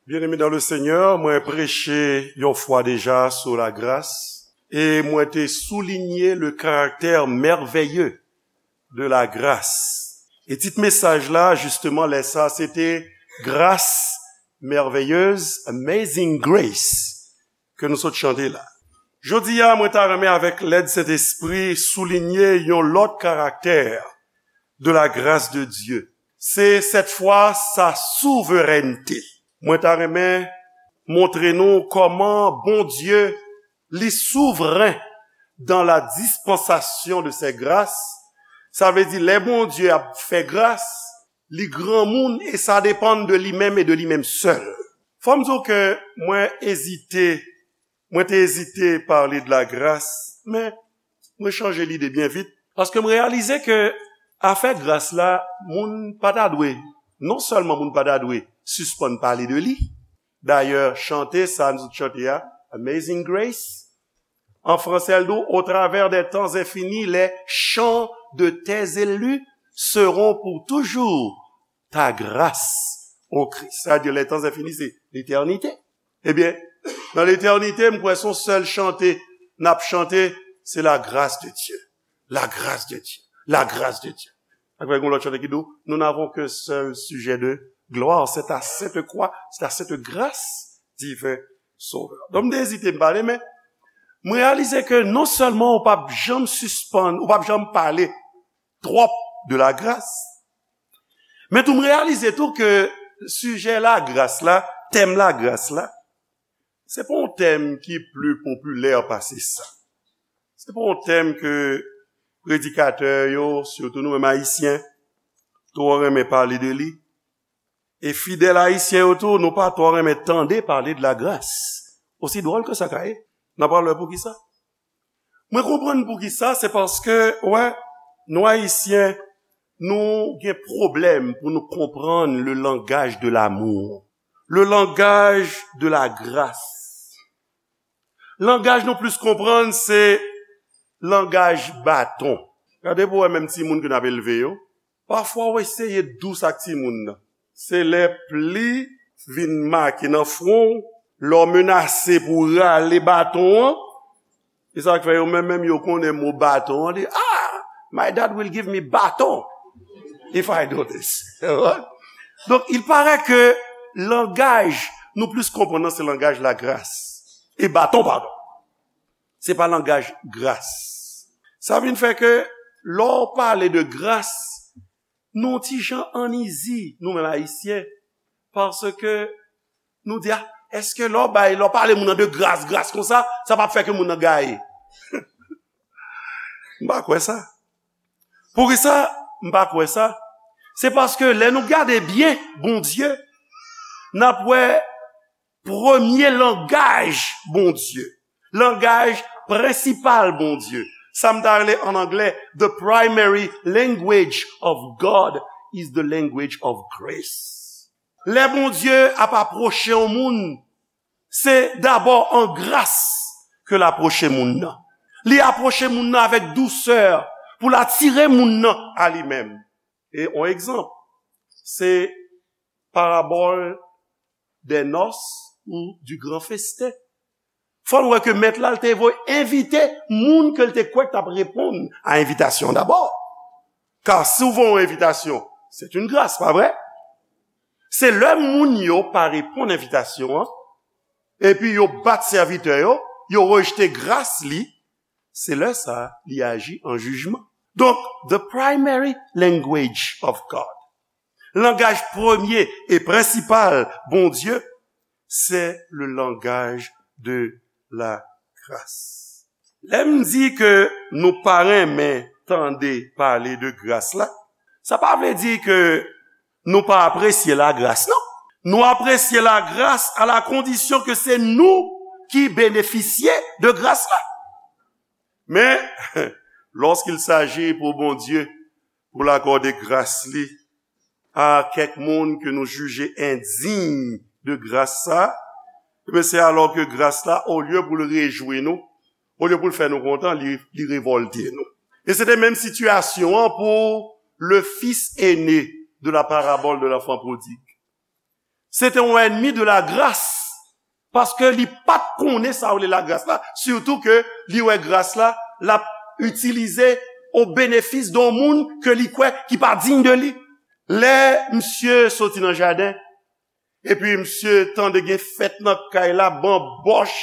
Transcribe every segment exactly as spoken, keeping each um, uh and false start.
Bien-aimés dans le Seigneur, mwen preche yon fwa deja sou lagras, e mwen te soulinye le caractère merveilleux de la grâce. E tit mesaj la, jisteman, lè sa, se te Grâce merveilleuse, Amazing Grace, ke nou sot chante la. Jodi a, mwen ta renmen avèk lèd Sentespri soulinye yon lòt karaktè de la grâce de Dieu. Se sèt fwa sa souverènte. Mwen ta renmen montre nou kòman Bondye li souvren dans la dispensation de ses grâces. Sa vle di, lè Bondye ap fè gras, li granmoun e sa depann de li menm e de li menm sèl. Fò m di w ke mwen ezite, mwen te ezite pale de lagras, men mwen chanje lide byen vit, paske m reyalize ke afè gras la, moun pa ta dwe, non sèlman moun pa ta dwe sispann pale de li. Dayè, chante sa nou chante a, Amazing Grace, an fransè, l di w, au travers des temps infinis, les chants de tes élus seront pour toujours ta grâce, ô Christ. Sa vle di, les temps infinis, se letènite. Ebyen, nan letènite, m kwè se yon sèl chante n ap chante, se la grâce de Dieu. La grâce de Dieu. La grâce de Dieu. Sa fè gen yon lòt chante ki di w, nous n'avons qu'un seul sujet de gloire, c'est ta sainte croix, c'est ta sainte grâce, divin Sauveur. Donk, m te ezite m pale, men m reyalize ke non sèlman ou p ap janm sispann, ou p ap janm pale twòp de lagras, men tou m reyalize tou ke sijè lagras la, tèm lagras la, se pa yon tèm ki pli popilè pase sa. Se pa yon tèm ke predikatè yo, sitou nou menm Ayisyen, twò renmen pale de li. E fidèl ayisyen yo tou, nou pa twò renmen tande pale de lagras. Osi dwòl ke sa ka ye, n a pral wè poukisa. Mwen konprann poukisa, se paske, wè, nou Ayisyen, nou gen pwoblèm pou nou konprann le langage de l'amour, le langage de la grâce. Langaj nou plis konprann se langaj baton. Gade pou wè menm timoun ke n ap elve yo. Pafwa w eseye dous ak timoun nan. Se lè pli vin make nan fwon w, lè w menase pou w rale baton an, e sa k fè yo menm, menm yo konnen mo baton an, di, "Ah, my dad will give me baton if I do this." Donk, il paraît que langaj nou plis konprann nan se langaj lagras. E baton, padon. Se pa langaj gras. Sa vin fè ke lè w pale de gras, nou ti jan an izi, nou menm Ayisyen, paske nou di, "Ah, èske lè w bay, lè w pale moun nan de gras, gras konsa, sa p ap fè ke moun nan gaye?" M pa kwè sa. Poukisa m pa kwè sa? Se paske lè nou gade byen Bondye, n ap wè premye langaj Bondye, langaj prensipal Bondye. Sa m ta rele an anglè, the primary language of God is the language of grace. Lè Bondye ap apwoche yon moun, se dabò an gras ke l apwoche moun nan. Li apwoche moun nan avèk dousè pou l atire moun nan a li menm. E yon egzanp, se parabòl des noces ou du grand festin. Fò n wè ke mèt la, l te voye envite moun ke l te kwè k t ap reponn a envitasyon an dabò. Ka si w voye yon envitasyon, c'est une grâce, pa vre? Se lè moun yo pa reponn envitasyon an, epi yo bat sèvitè yo, yo rejte gras li, se lè sa a li aji an jijman. Donk, the primary language of God, langaj premye e prensipal Bondye, se le langaj de la gras. Lè m di ke nou pa renmen tande pale de gras la, sa pa vle di ke nou pa apresye lagras, non. Nou apresye lagras à la condition que c'est nous qui bénéficions de grâce là. Men, lorsqu'il s'agit pour Bondye, pou l akòde gras li a kèk moun ke nou jije endiy de gras sa, ebyen, se alò ke gras la, olye pou l rejwi nou, olye pou l fè nou kontan, li, li revòlte nou. E se te menm sitiyasyon an pou le fils aîné de la parabole de l'enfant prodigue. se te yon ènmi de lagras, paske li pa t konnen sa yo rele lagras la, sitou ke li wè gras la, l ap itilize o benefis de yon moun ke li kwè ki pa diy de li. Lè misye soti nan jaden, epi misye tande gen fèt nan kay la, banbòch.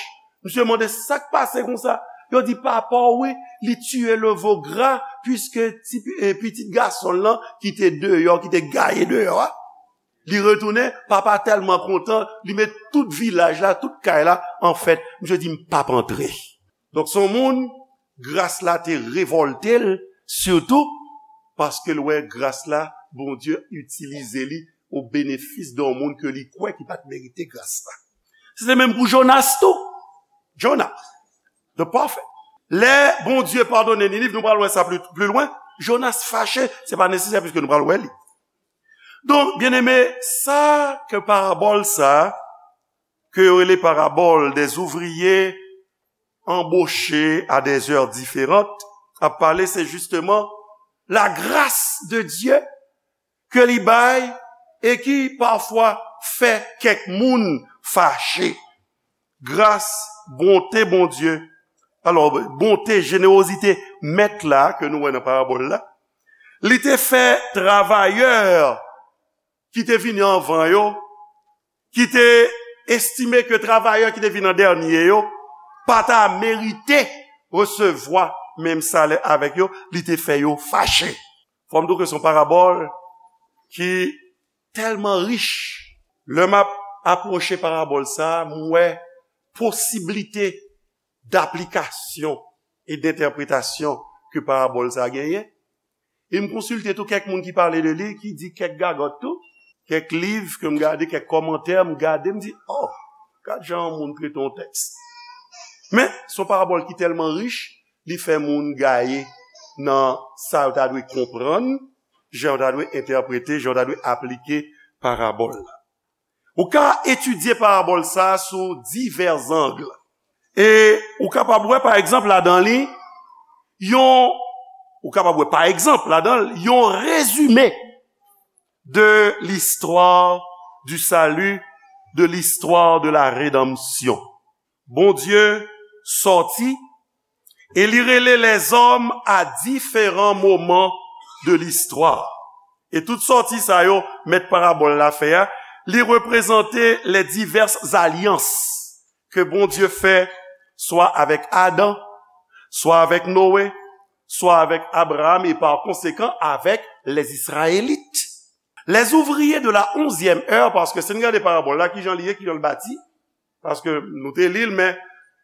Misye mande sa k pase konsa. Yo di, "Papa w, wi, li tiye le vo gra, piske ti, eh, pitit gason l lan ki te deyò, ki te gaye deyò a, li retounen, papa tèlman kontan, li met tout vilaj la, tout kay la an fèt." Misye di, "M p ap antre." Donk, se yon moun, gras la te revòlte l, sitou paske l wè gras la, Bondye itilize li o benefis de yon moun ke li kwè ki pa t merite gras la. Se te menm pou Jonas tou. Jonah, the prophet. Lè Bondye padone Niniv, nou pral wè sa pli, pli lwen, Jonas fache, se pa nesesè piske nou pral wè li. Donk, byeneme, sa ke parabòl sa, ke yo rele parabòl des ouvriers embauchés à des heures différentes, ap pale, se jisteman la grâce de Dieu ke li bay e ki pafwa fè kèk moun fache. Gras, bonte Bondye, alò, bonte, jenerozite mèt la ke nou wè nan parabòl la, li te fè travayè ki te vini anvan yo, ki te estime ke travayè ki te vin an dènye yo pa ta merite resevwa menm salè avèk yo, li te fè yo fache. Fò m di w ke se yon parabòl ki tèlman rich. Lè m ap apwoche parabòl sa a, m wè posiblite daplikasyon e dentèpretasyon ke parabòl sa a genyen. E m konsilte tou kèk moun ki pale de li, ki di kèk gagòt tou, kèk liv ke m gade, kèk kòmantè m gade, m di, "Oh, gad jan yon moun trete yon tèks." Men, se yon parabòl ki tèlman rich, li fè moun gaye nan sa yo ta dwe konprann, jan yo ta dwe entèprete, jan yo ta dwe aplike parabòl la. Ou ka etidye parabòl sa a sou divè zang. E ou kapab wè, pa egzanp, ladan li, yon, ou kapab wè, pa egzanp, ladan l, yon rezime de l'histoire du salut, de l'histoire de la rédemption. Bondye sòti e li rele lèzòm a diferan moman de listwa. E tout sòti sa yo, mèt parabòl la fè a, li reprezante les diverses alliances ke Bondye fè, swa avèk Adan, swa avèk Noe, swa avèk Abraham, e pa konsekan avèk les Israélites. Les ouvriers de la onzième heure, paske si n gade parabòl la, kijan li ye, kijan l bati, paske nou te li l, men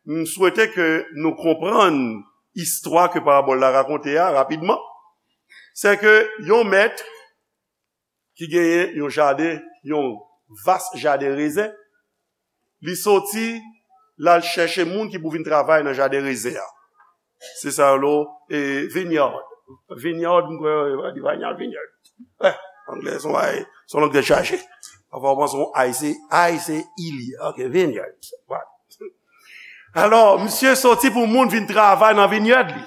m swete ke nou konprann istwa ke parabòl la rakonte a rapidman. Se ke yon mèt ki genyen yon jaden, yon vas jaden rezen, li soti, l al chèche moun ki pou vin travay nan jaden rezen an. Se sa yo rele, e, vineyard. Vineyard, m kwè, yo di vineyard, vineyard. Eh, anglè, se yon bagay, se yon lang tèt chaje. Pafwa, w panse yon ay, se, ay, se ilye. Ok, vineyard. Voilà. Alò, misye soti pou moun vin travay nan vineyard li,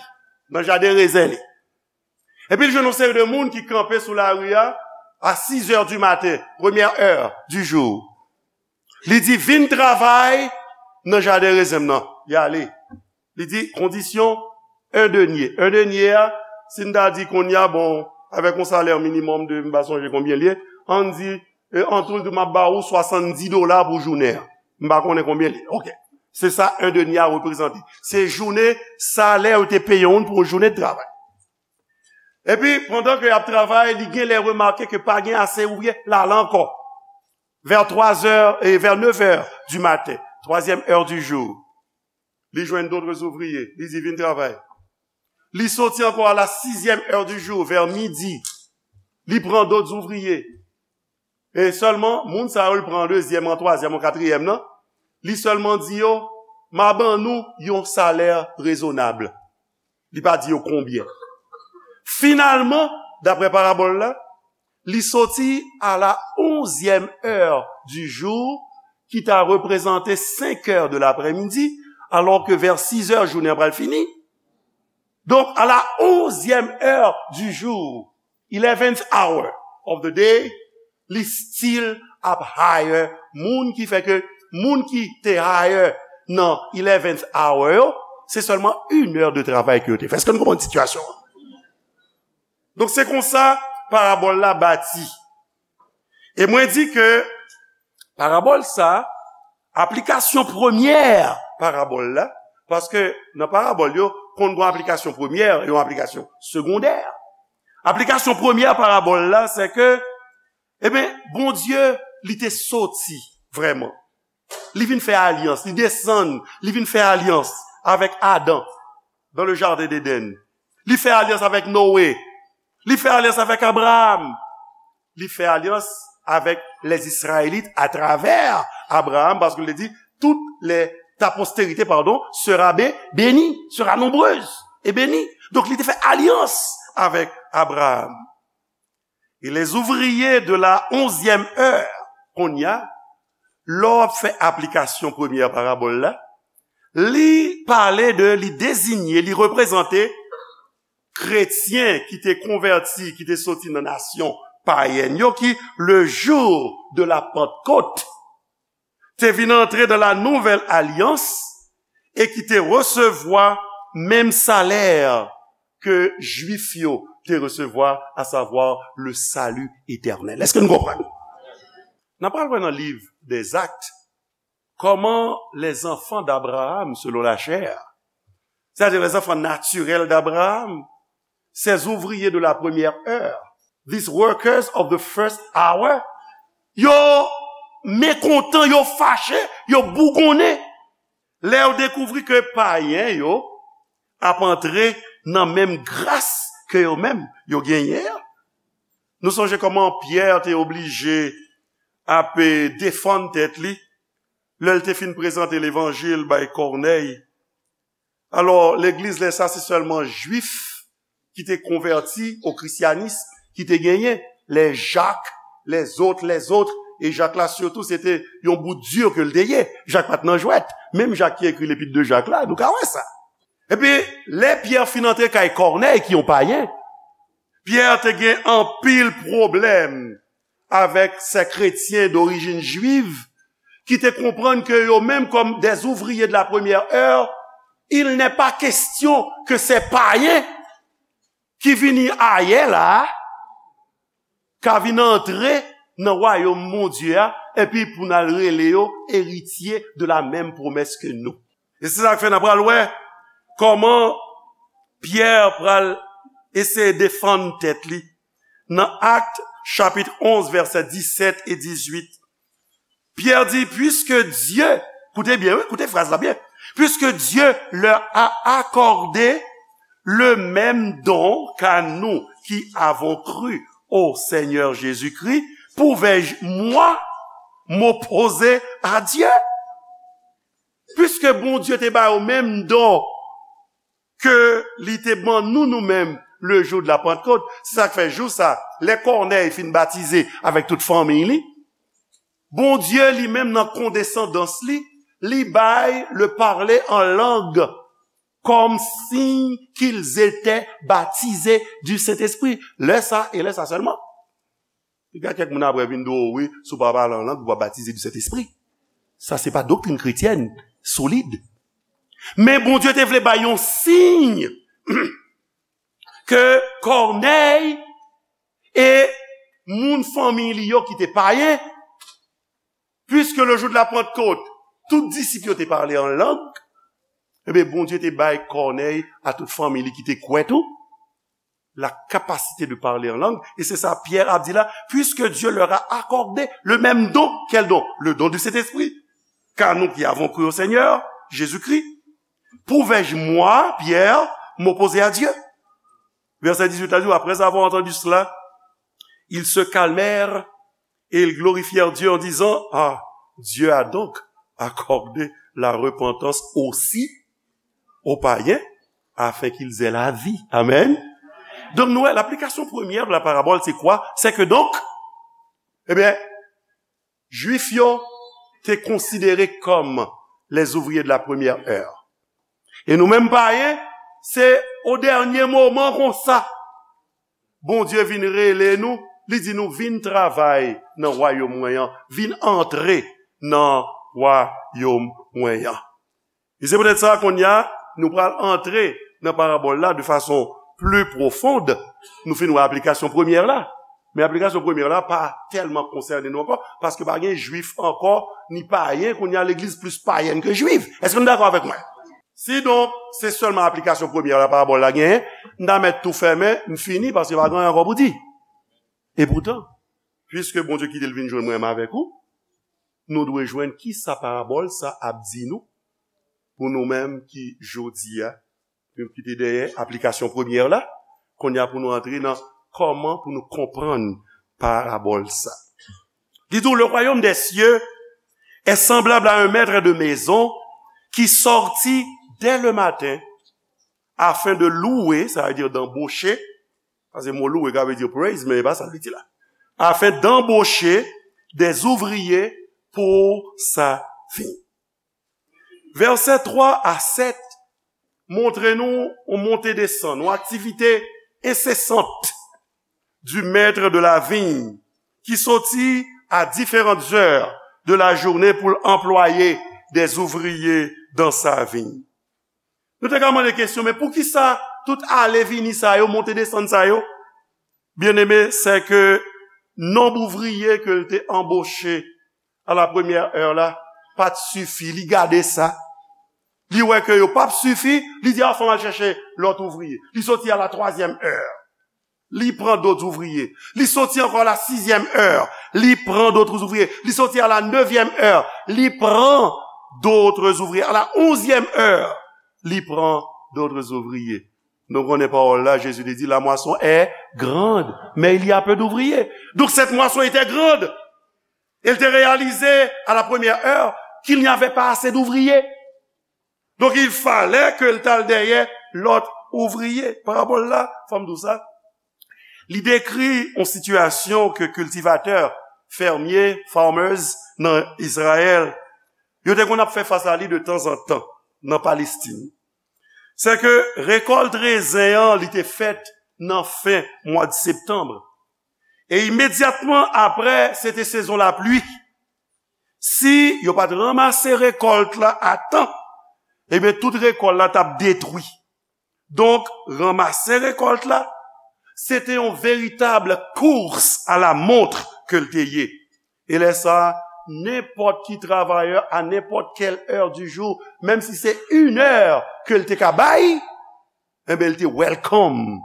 nan jaden rezen li. Epi l jwenn yon seri de moun ki kanpe sou lari a, a six heures du matin, première heure du jour. Li di, "Vin travay nan jaden rezen m nan." Y ale. Li di, "Kondisyon, un denier." Un denier a, si n ta di kounye a, bon, avèk yon salè minimòm de, m pa sonje konbyen l ye, ann di, e, an tou, l di, "M ap ba ou swasanndis dola pou jounen an." M pa konnen konbyen l ye. Ok. Se sa un denier a reprezante. Se jounen salè yo te peye yon moun pou yon jounen de travay. Epi, pandan ke y ap travay, li genlè remake ke pa gen ase ouvriye, l ale ankò. Vers trois heures, et vers neuf heures du matin, troisième heure du jour. Li jwenn d'autres ouvriers, li di, "Vin travay." Li soti ankò à la sixième heure du jour, vers midi. Li pran d'autres ouvriers. E sèlman, moun sa yo, l pran an dezyèm, an twazyèm, an katriyèm nan, li sèlman di yo, "M a ban nou yon salè rezonab." Li pa di yo konbyen. Finalman, daprè parabòl la, li soti à la onzième heure du jour, ki ta reprezante cinq heures de l'après-midi, alors que vers six heures, jounen an pral fini. Donk, à la onzième heure du jour, eleventh hour of the day, li still ap hire moun ki fè ke moun ki te hire nan eleventh hour yo, se sèlman inè de travay ke yo te fè. Èske nou konprann sitiyasyon an? Donk, se konsa parabòl la bati. E mwen di ke parabòl sa, aplikasyon premyè parabòl la, paske nan parabòl yo, konn gen aplikasyon premyè, yon aplikasyon segondè. Aplikasyon premyè parabòl la, se ke, ebyen, Bondye, li te soti vrèman. Li vin fè alyans, li desann, li vin fè alyans avèk Adan dans le jardin d'Éden. Li fè alyans avèk Noé. Li fè alyans avèk Abraham. Li fè alyans avèk les Israélites à travers Abraham, paske li di, toute les, ta postérité, pardon, sera bé-, bénie, sera nombreuse et bénie. Donk, li te fè alyans avèk Abraham. Et les ouvriers de la onzième heure, kounye a, lè w ap fè aplikasyon premyè parabòl la, li pale de, li deziye, li reprezante kretyen ki te konvèti, ki te soti nan nasyon payèn yo, ki, le jour de la Pentecôte, te vin antre dans la nouvelle alliance e ki te resevwa menm salè ke Jwif yo te resevwa, à savoir le salut éternel. Èske nou konprann? N ap pral wè nan liv des Actes, comment les enfants d'Abraham selon la chair, c'est-à-dire les enfants naturels d'Abraham, ces ouvriers de la première heure, these workers of the first hour, yo mekontan, yo fache, yo bougonnen. Lè yo dekouvri ke payen yo ap antre nan menm gras ke yo menm yo genyen an. Nou sonje kòman Pyè te oblije ap, eh, defann tèt li lè l te fin prezante levanjil bay Kònèy. Alò, legliz lè sa se sèlman Jwif ki te konvèti o krisyanis ki te genyen, les Jacques, les autres, les autres, e Jak la sitou se te yon bout di ke l te ye. Jak pa t nan jwèt. Menm Jak ki ekri Lepit de Jak la, nou ka wè sa. Epi, lè Pyè fin antre kay Kònèy, ki yon payen, Pyè te gen anpil pwoblèm avèk se kretyen dorijin jwiv ki te konprann ke yo menm, comme des ouvriers de la première heure, il n'est pas question que ces païens ki vini ayè la a ka vin antre nan wayòm Bondye a, epi pou n al rele yo eritye de la menm pwomès ke nou. E se sa k fè n ap pral wè kòman Pyè pral eseye defann tèt li nan Actes chapitre onze, vèsè disèt e dizuit. Pyè di, puisque Dieu, koute byen, wi, koute fraz la byen, puisque Dieu leur a accordé le même don qu'à nous qui avons cru au Seigneur Jésus-Christ, pouvais-je, moi, m'opposer à Dieu? Puisque Bondye te ba yo menm don ke li te ban nou, nou menm, le jour de la Pentecôte. Se sa k fè jou sa, lè Kònèy fin batize avèk tout fanmiy li, Bondye li menm nan kondesandans li, li bay le parler en langue comme signe qu'ils étaient baptisés du Saint-Esprit. Lè sa e lè sa sèlman. Gen kèk moun apre vin di w, wi, si w pa pale an lang, ou pa batize du Saint-Esprit. Sa se pa doktrin kretyèn solid. Men Bondye te vle bay yon siy ke Kònèy e moun fanmi li yo ki te payen, puisque le jour de la Pentecôte, tout disip yo te pale an lang, ebyen, Bondye te bay Kònèy a tout fanmi li ki te kwè tou, la capacité de parler en langue. Et c'est ça Pierre a dit là, puisque Dieu leur a accordé le même don. Quel don? Le don du Saint-Esprit. Car nous qui avons cru au Seigneur Jésus-Christ, pouvais-je, moi, Pierre, m'opposer à Dieu? Verset dix-huit a dit, après avoir entendu cela, ils se calmèrent et ils glorifièrent Dieu en disant, ah, Dieu a donc accordé la repentance aussi aux païens, afin qu'ils aient la vie. Amen. Donk, nou wè, laplikasyon premyè de la parabòl, se kwa? Se ke donk, ebyen, Jwif yo te konsidere kòm les ouvriers de la première heure. E nou menm payen, se o dènye moman konsa, Bondye vin rele nou Li di nou, vin travay nan wayòm mwen an, vin antre nan wayòm mwen an. E se poutèt sa, kounye a, nou pral antre nan parabòl la de fason pli pwofond. Nou fin wè aplikasyon premyè la. Men aplikasyon premyè la pa tèlman konsène nou ankò, paske pa gen Jwif ankò, ni payen, kounye a legliz plis payèn ke jwif. Èske nou dakò avèk mwen? Si donk, se sèlman aplikasyon premyè la parabòl la genyen, m ta mèt tou fèmen, m fini, paske pa gen anyen ankò pou di. E poutan, piske Bondye kite l vin jwenn mwen menm avèk ou, nou dwe jwenn kisa parabòl sa ap di nou, pou nou menm ki jodi a, nou kite dèyè aplikasyon premyè la, kounye a pou nou antre nan kòman pou nou konprann parabòl sa. Li di w, le royaume des cieux est semblable à un maître de maison qui sortit dès le matin afin de louer, sa vle di d'embaucher, paske mo louer ka vle di praise, men e pa sa li di la. Afin d'embaucher des ouvriers pour sa vigne. Vèsè twa a sèt montre nou yon monte desann, yon aktivite ensesant du maître de la vigne, ki soti à différentes heures de la journée pour employer des ouvriers dans sa vigne. Nou te ka mande kesyon, men poukisa tout ale vini sa yo, monte desann sa yo? Byeneme, sè ke nonb ouvriye ke l te anboche à la première heure la, pa t sifi. Li gade sa. Li wè ke yo p ap sifi, li di, a, fò m al chèche lòt ouvriye. Li soti à la troisième heure. Li pran dòt ouvriye. Li soti ankò à la sixième heure. Li pran dòt ouvriye. Li soti à la neuvième heure. Li pran dòt ouvriye. À la onzième heure, li pran dòt ouvriye. Nou konnen pawòl la, Jezi te di, la moisson est grande, mais il y a peu d'ouvriers. Donc cette moisson était grande. Et il était réalisé à la première heure qu'il n'y avait pas assez d'ouvriers. Donc il fallait que l t al dèyè lòt ouvriye. Parabòl la, fò m di w sa, li dekri yon sitiyasyon ke kiltivatè, fèmye, farmers nan Izrayèl, yo te konn ap fè fas a li de tanzantan nan Palestin. Sè ke rekòlt rezen an, li te fèt nan fen mwa de septanm. E imedyatman apre, se te sezon lapli. Si yo pa t ranmase rekòlt la a tan, ebyen, tout rekòlt la t ap detwi. Donk, ranmase rekòlt la, se te yon veritab kous a la mont ke l te ye. E lè sa a, nenpòt ki travayè, a nenpòt kèl heure du jour, menm si se une heure ke l te ka bay, enben, l te welcome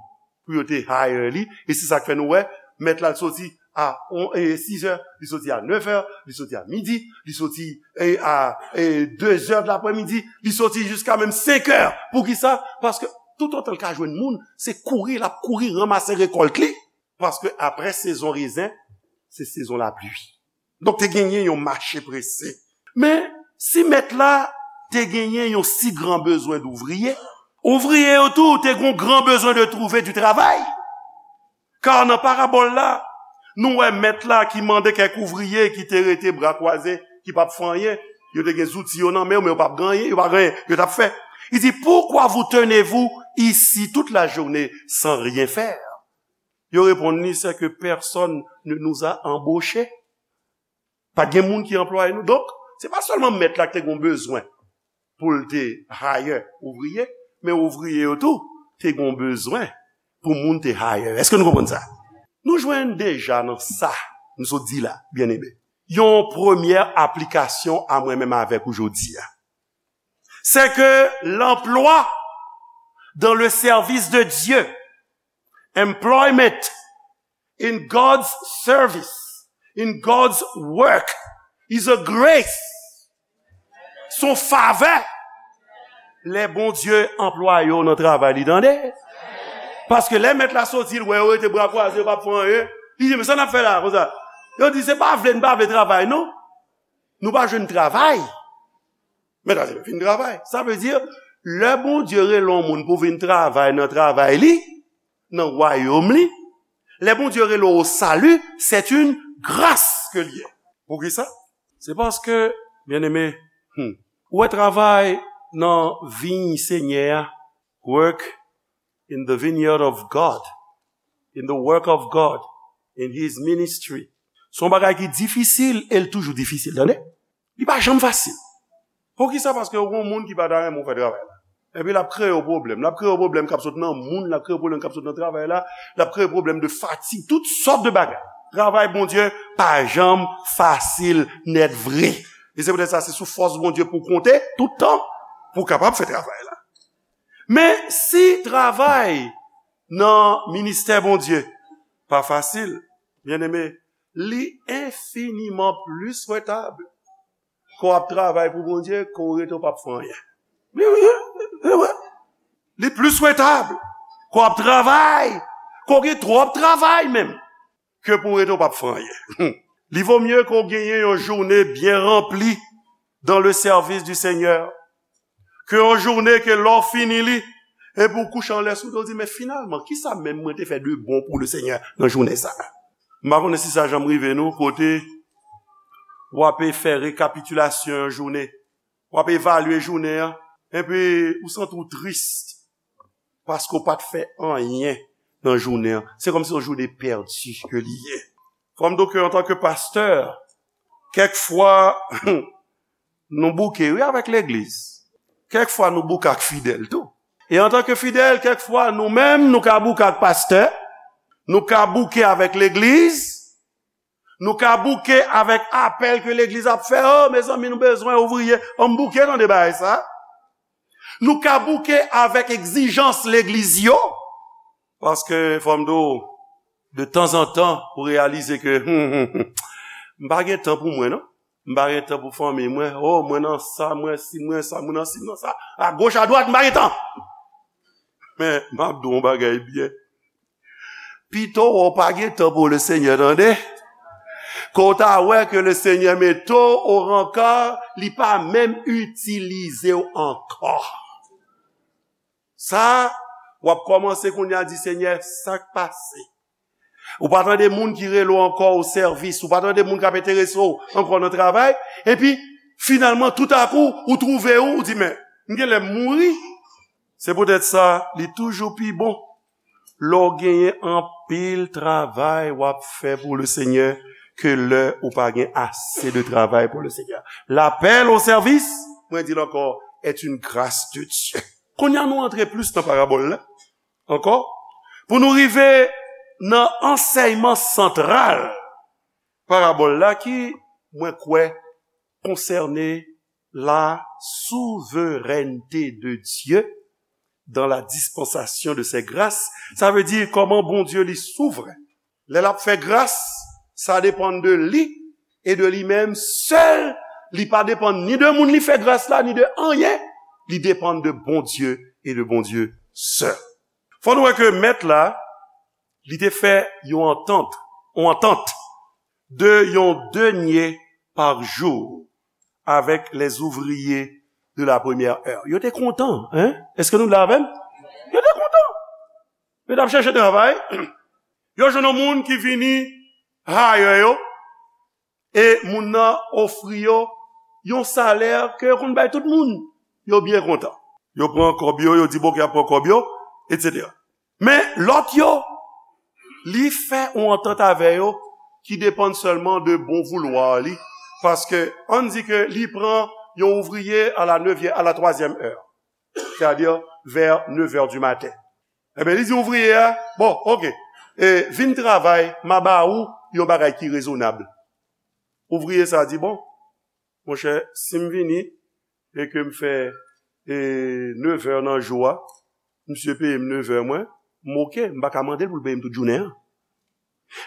pou yo te hire li. E se sa k fè nou wè, mèt la soti a on, e, sis è, li soti a nèf è, li soti a midi, li soti, e, a, e, de zè de laprèmidi, li soti jiska menm senk è. Poukisa? Paske toutotan l ka jwenn moun, se kouri, l ap kouri ranmase rekòlt li. Paske apre sezon rezen, se sezon lapli. Donk, te genyen yon mache prese. Men, si mèt la te genyen yon si gran bezwen douvriye, ouvriye yo tou te gen yon gran bezwen de trouver du travail. Kar nan parabòl la, nou wè mèt la ki mande kèk ouvriye ki te rete bra kwaze, ki p ap fè anyen. Yo te gen zouti yo nan men yo, men yo p ap gen anyen, yo pa gen anyen yo t ap fè. Il dit, pourquoi vous tenez-vous ici toute la journée sans rien faire? Yo reponn li, c'est que personne ne nous a embauchés. Pa t gen moun ki anplwaye nou. Donk, se pa sèlman mèt la ki te gen bezwen pou l te hire ouvriye, men ouvriye yo tou te gen bezwen pou moun te hire. Èske nou konprann sa? Nou jwenn deja nan sa m sot di la, byeneme, yon premyè aplikasyon a mwen menm avèk ou jodi a. C'est que l'emploi dans le service de Dieu, employment in God's service, in God's work, is a grace. Se yon favè. Lè Bondye anplwaye w nan travay li, tande. Paske lè mèt la soti, l wè yo rete bra kwaze, yo p ap fè anyen. Li di, men sa n ap fè la, konsa? Yo di, se pa vle n pa vle travay, non. Nou pa jwenn travay. Mèt la di, vin travay. Sa vle di, lè Bondye rele yon moun pou vin travay nan travay li, nan wayòm li, lè Bondye rele w o sali, c'est une grâce ke l ye. Poukisa? Se paske, byeneme, hmm, ou wè travay nan viy Senyè a, work in the vineyard of God, in the work of God, in his ministry. Se yon bagay ki difisil e l toujou difisil, tande? Li pa janm fasil. Poukisa? Paske ou gon moun ki pa ta renmen w fè travay la. Epi l ap kreye w pwoblèm. L ap kreye w pwoblèm k ap sot nan moun, l ap kreye w pwoblèm k ap sot nan travay la, l ap kreye w pwoblèm de fatig, tout sòt de bagay. Travay Bondye pa janm fasil nèt vre. E se poutèt sa, se sou fòs Bondye pou w konte tout tan pou w kapab fè travay la. Men si travay nan ministè Bondye pa fasil, byeneme, li enfiniman plis rentab ke w ap travay pou Bondye ke w rete w p ap fè anyen. Li, li, li, li, li plis rentab ke w ap travay, ke w gen twòp travay menm, ke pou w rete w p ap fè anyen. Li vo mye ke w genyen yon jounen byen ranpli dans le service du Seigneur, ke yon jounen ke lè w fini li, epi w kouche anlè sou do w di, men finalman, kisa menm mwen te fè de bon pou le Senyè nan jounen sa a? M pa konnen si sa janm rive nou, kote w ape fè rekapitilasyon yon jounen, w ape evalye jounen an, epi ou santi w tris paske w pa t fè anyen nan jounen an. Se kòmsi yon jounen pèdi ke li ye. Fò m di w ke antanke pastè, kèk fwa, nou bouke, wi, avèk legliz. Kèk fwa, nou bouke ak fidèl tou. E antanke fidèl, kèk fwa, nou menm, nou ka bouke ak pastè, nou ka bouke avèk legliz, nou ka bouke avèk apèl ke legliz ap fè. O, mezanmi, nou bezwen ouvriye. Ann bouke, tande bagay sa. Nou ka bouke avèk egzijans legliz yo. Paske, fò m di w, de tanzantan, ou reyalize ke, m pa gen tan pou mwen, non. M pa gen tan pou fanmi mwen. O, mwen nan sa, mwen si, mwen sa, mwen nan si, mwen nan sa. Agoch, adwat, m pa gen tan. Men, m ap di w yon bagay byen. Pito w pa gen tan pou le Senyè, tande. Ke w ta wè ke le Senyè mete w o rankar, li pa menm itilize w ankò. Sa, w ap kòmanse kounye a di, Senyè, sa k pase? Ou pa tande moun ki rele w ankò o sèvis, ou pa tande moun k ap enterese w ankò nan travay, epi, finalman, toutakou, ou twouve w, ou di, men, m genlè mouri. Se poutèt sa, li toujou pi bon lè w genyen anpil travay w ap fè pou le Senyè ke lè ou pa gen ase de travay pou le Senyè. L'appel au service, mwen di l ankò, est une grâce de Dieu. Kounye a nou antre plis nan parabòl la ankò, pou nou rive nan ansèyman santral parabòl la ki, mwen kwè, konsène la souveraineté de Dieu dans la dispensation de ses grâces. Sa vle di kòman Bondye li souvren. Lè l ap fè gras, sa depann de li e de li menm sèl. Li pa depann ni de moun li fè gras la, ni de anyen. Li depann de Bondye e de Bondye sèl. Fò nou wè ke mèt la, li te fè yon antant, yon antant de yon denye par jou avèk les ouvriers de la première heure. Yo te kontan, hein? Èske nou la avè m? Yo te kontan. Yo t ap chèche travay. Yo jwenn yon moun ki vini hire yo. E moun nan ofri yo yon salè ke yo konn bay tout moun. Yo byen kontan. Yo pran kòb yo, yo di, bon, ke y ap pran kòb yo, etsetera. Men lòt yo, li fè yon antant avè yo ki depann sèlman de bon voulwa li. Paske, ann di ke li pran yon ouvriye à la neuvième, à la troisième heure. C'est-à-dire vers neuf heures du matin. Ebyen, li di ouvriye a, bon, oke, e, vin travay, m a ba ou yon bagay ki rezonab. Ouvriye sa a di, bon, monchè, si m vini e ke m fè, e, neuf heures nan jou a, misye peye m neuf heures mwen, m oke, m pa ka mande l pou l peye m tout jounen an.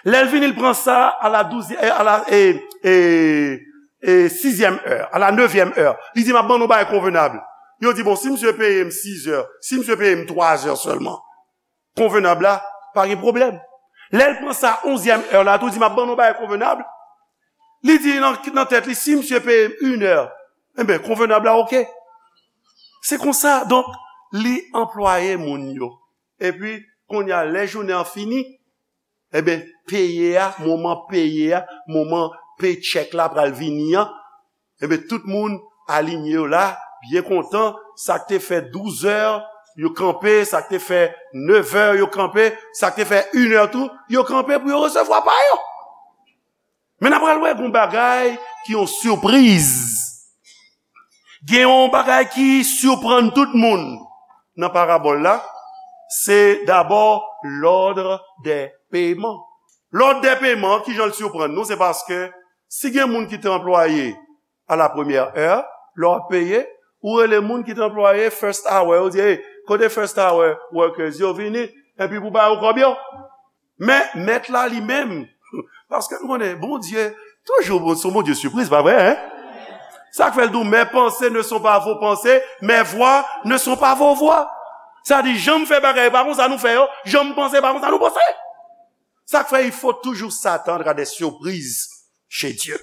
Lè l vini, l pran sa à la douzième, à la, e, e, e, sixième heure, à la neuvième heure. Li di, m ap ban nou bagay konvenab. Yo di, bon, si misye peye m sis heures, si misye peye m twa heures sèlman, konvenab la, pa gen pwoblèm. Lè l pran sa onzyèm heure la, tou di, m ap ban nou bagay konvenab. Li di nan, nan tèt li, si misye peye m une heure, enben, konvenab la, oke. Se konsa, donk, li anplwaye moun yo. Epi, kounye a, lè jounen an fini, enben, peye a, moman peye a, moman paycheck la pral vini an, enben, tout moun alinye yo la, byen kontan, sa k te fè douz heures, yo kanpe, sa k te fè nevè, yo kanpe, sa k te fè inè tou, yo kanpe pou yo resevwa pa yo. Men n ap pral wè gon bagay ki yon sipriz. Gen yon bagay ki siprann tout moun nan parabòl la, se dabò l'ordre des paiements. L'ordre des paiements, ki jan l siprann nou, se paske si gen moun ki te anplwaye à la première heure, lè w ap peye, ou rele moun ki te anplwaye first hour, ou di, "Hey, kote first hour workers yo, vini, epi pou ba yo kòb yo." Men, mèt la li menm, paske nou konnen, Bondye, toujou, bon, se yon Bondye sipriz, pa vre, hein? Sa k fè l di w, "Mes pensées ne sont pas vos pensées, mes voies ne sont pas vos voies." Sa di, jan m fè bagay, pa konsa nou fè yo, jan m panse, pa konsa nou panse. Sa k fè, il faut toujours s'attendre à des surprises chez Dieu.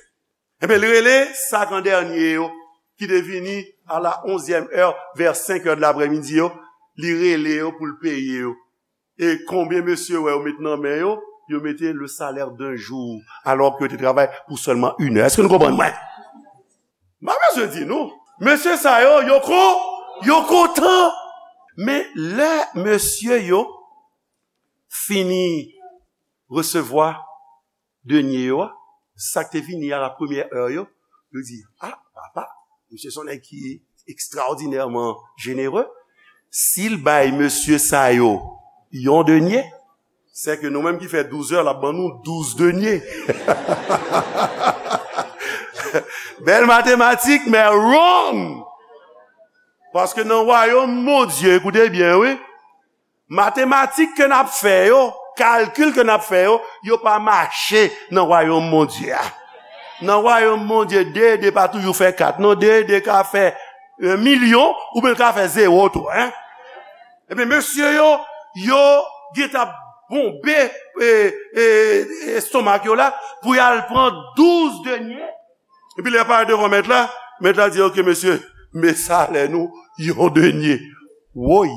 Ebyen, li rele sa k an dènye yo, ki te vini à la onzième heure, vers cinq heures de l'après-midi yo, li rele yo pou l peye yo. E konbyen mesye wè yo met nan men yo? Yo mete le salaire d'un jour, alors que yo te travay pou sèlman une heure. Èske nou konprann mwen? M pa bezwen di nou. Mesye sa yo, yo kon, yo kontan. Men lè mesye yo fini resevwa dènye yo a, sa k te vini à la première heure yo, yo di, "Ah, papa, misye se yon nèg ki ekstraòdinèman jenere. Si l bay mesye sa yo yon dènye, se ke nou menm ki fè douz è, l ap ban nou douz dènye." Bèl matematik, men wrong! Paske nan wayòm Bondye, koute byen, wi, matematik ke n ap fè yo, kalkil ke n ap fè yo, yo pa mache nan wayòm Bondye a. Nan wayòm Bondye, de e de pa toujou fè kat, non, de e de ka fè yon milyon, oubyen l ka fè zewo tou, hein. Ebyen, mesye yo, yo gentan ap bonbe, e, e, estomak yo la, pou y al pran douz dènye. Epi lè yo parèt devan mèt la, mèt la di, "Ok, mesye, men salè nou, yon dènye." Woy!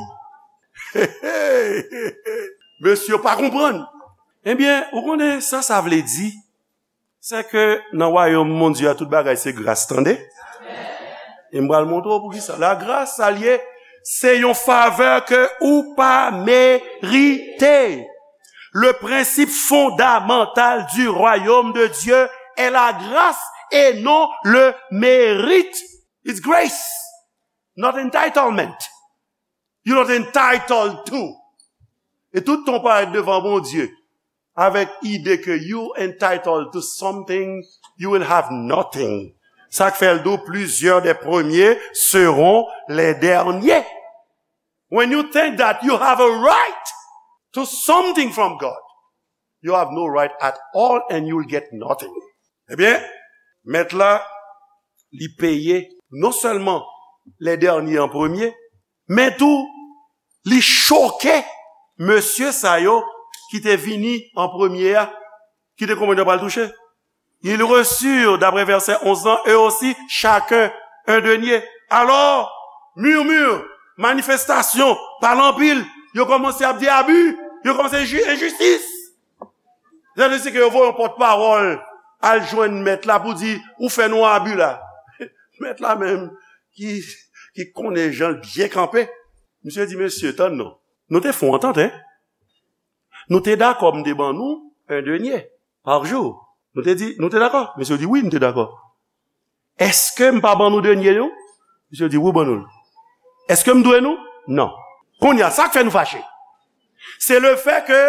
Mesye yo pa konprann. Ebyen, ou konnen sa sa vle di? Se ke nan wayòm Bondye a, tout bagay se gras, tande? E m pral montre w poukisa. Lagras, sa l ye, se yon favè ke ou pa merite. Le principe fondamental du royaume de Dieu est la grâce et non le mérite. It's grace, not entitlement. You're not entitled to. E tout tan w parèt devan Bondye avèk ide ke you entitled to something, you will have nothing. Sa k fè l di w, plusieurs des premiers seront les derniers. When you think that you have a right to something from God, you have no right at all and you will get nothing. Ebyen, mèt la, li peye non sèlman les derniers en premier, men tou, li choke mesye sa yo ki te vini an premye a, ki te konprann yo pral touche. Ils reçurent, d'après verset onze lan, eux aussi, chacun un denier. Alors, murmure, manifestasyon, pale anpil, yo kòmanse ap di abi, yo kòmanse di enjistis. Sètadi ke yo voye yon pòtpawòl al jwenn mèt la pou di, "Ou fè nou abi la." Mèt la menm, ki, ki konnen jan l byen kanpe, misye di, "Mesye, tann non. Nou te fè yon antant, en. Nou te dakò m te ban nou un denier par jour. Nou te di, nou te dakò?" Mesye di, "Wi, nou te dakò." "Èske m pa ban nou denier nou?" Misye di, "Wi, w ban nou l." "Èske m dwe nou?" "Non." Kounye a, sa k fè nou fache? Se le fè ke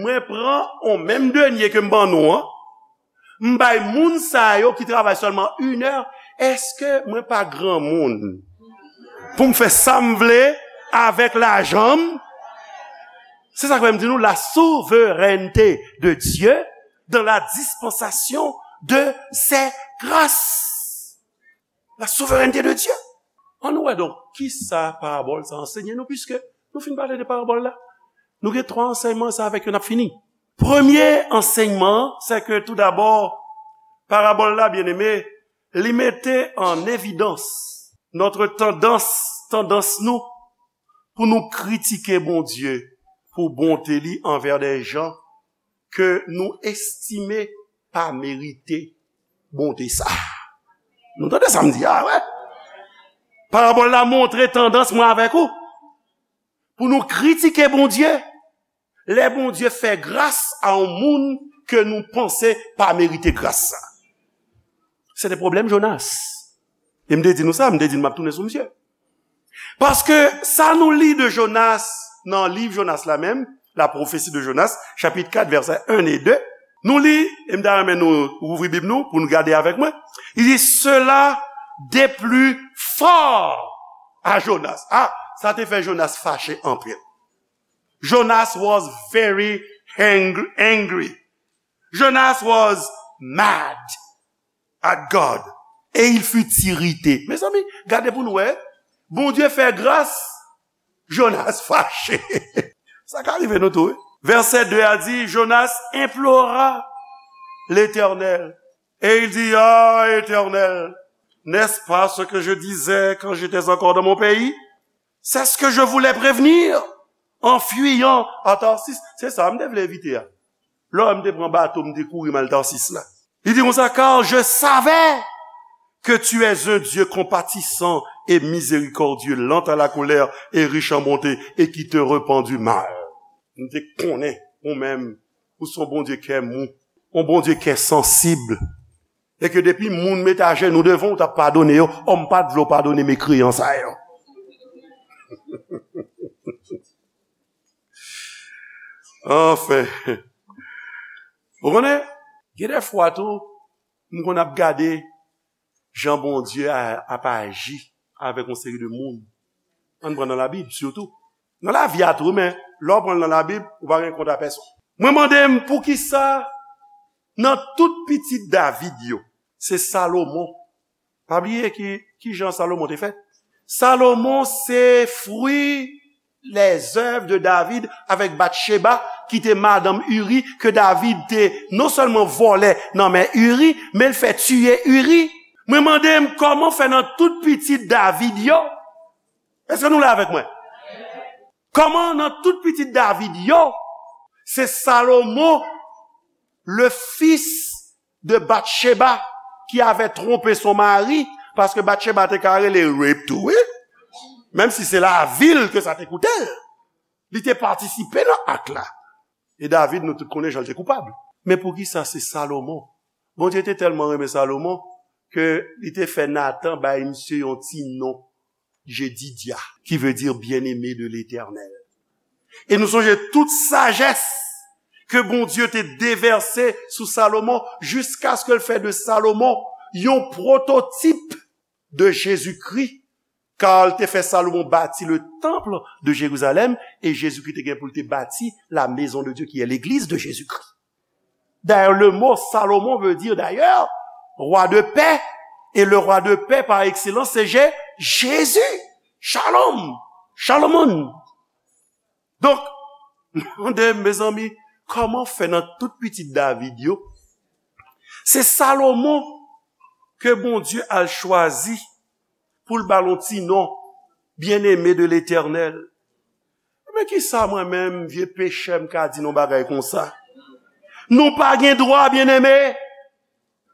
mwen pran yon menm denier ke m ban nou an, m bay moun sa yo ki travay sèlman inè, èske mwen pa granmoun pou m fè sa m vle avèk lajan m? Se sa k fè m di nou, la souveraineté de Dieu dans la dispensation de ses grâces. La souveraineté de Dieu. Ann nou wè donk, kisa parabòl sa ansenye nou, piske nou fin pale de parabòl la. Nou gen twa ansèyman, se avèk yo n ap fini. Premye ansèyman an, se ke tou dabò, parabòl la, byeneme, li mete an evidans notre tendance, tandans nou pou nou kritike Bondye pou bonte li anvè de jan ke nou estime pa merite bonte sa. Nou tande sa m di a, wè? Parabòl la montre tandans mwen avèk ou. pou nou kritike Bondye, lè Bondye fè gras a yon moun ke nou panse pa merite gras sa. Se te pwoblèm Jonas. E m te di nou sa, m te di nou m ap tounen sou misye. Paske sa nou li de Jonas, nan liv Jonas la menm, la prophétie de Jonas, chapit kat, vèsè en e de, nou li, e m ta renmen nou ouvri Bib nou pou nou gade avèk mwen. Li di, cela déplut fort à Jonas. Ah, sa te fè Jonas fache anpil. Jonas was very angry, angry. Jonas was mad at God. Et il fut irrité. Mezanmi, gade pou nou wè. Bondye fè gras, Jonas fache. Sa ka rive nou tou, wi. Vèsè de a di, Jonas implora l'Éternel. Et il dit, ah, Éternel, n'est-ce pas ce que je disais quand j'étais encore dans mon pays? C'est ce que je voulais prévenir en fuyant à Tarsis. Se sa m te vle evite a. Lè m te pran bato, m te kouri m al Tarsis la. Li di konsa, car je savais que tu es un Dieu compatissant et miséricordieux, lent à la colère et riche en bonté, et qui te repens du mal. M te konnen, ou menm, ou se yon Bondye kè mou, yon Bondye kè sansib. E ke depi moun mete ajenou devan w, w t ap padone yo, o m pa t vle w padone mekreyan sa yo. Anfen. Ou konnen, gen de fwa tou, m konn ap gade jan Bondye a, ap aji avèk yon seri de moun. Ann pran nan Labib, sitou. Nan lavi a tou, men lè w pran l nan Labib, ou pa gen kont a pèsonn. Mwen mande m poukisa nan tout pitit David yo, se Salomon. Pa bliye ki, ki jan Salomon te fèt. Salomon se fwi lèzèv de David avèk Batcheba, ki te madanm Uri, ke David te non sèlman vòlè nan men Uri, men l fè tiye Uri. Mwen mande m kòman fè nan tout pitit David yo, èske nou la avèk mwen? Kòman nan tout pitit David yo, se Salomon, le fils de Batcheba, qui avait trompé son mari, paske Batcheba te ka rele rape tou, wi. Menm si se lavi l ke sa te koute l. Li te patisipe nan ak la. E David, nou tout konnen jan l te koupab. Men poukisa se Salomon? Bondye te tèlman renmen Salomon ke li te fè Natan bay misye yon ti non, Jedidia, qui veut dire bien-aimé de l'Éternel. E nou sonje tout sajès ke Bondye te devèse sou Salomon jiskaske l fè de Salomon yon pwototip de Jezikri, ka l te fè Salomon bati le temple de Jérusalem, e Jezikri te gen pou l te bati la maison de Dieu, qui est l'église de Jésus-Christ. D'ailleurs, le mot Salomon veut dire d'ailleurs roi de paix. Et le roi de paix par excellence, c'est Jé- Jésus. Shalom. Shalomon. Donk, mande, mezanmi, kòman fè nan tout pitit David yo, se Salomon ke Bondye al chwazi pou l ba l yon ti non, bien-aimé de l'Éternel. Men kisa mwen menm, vye pechè, m ka di nou bagay konsa? Nou pa gen dwa, byeneme,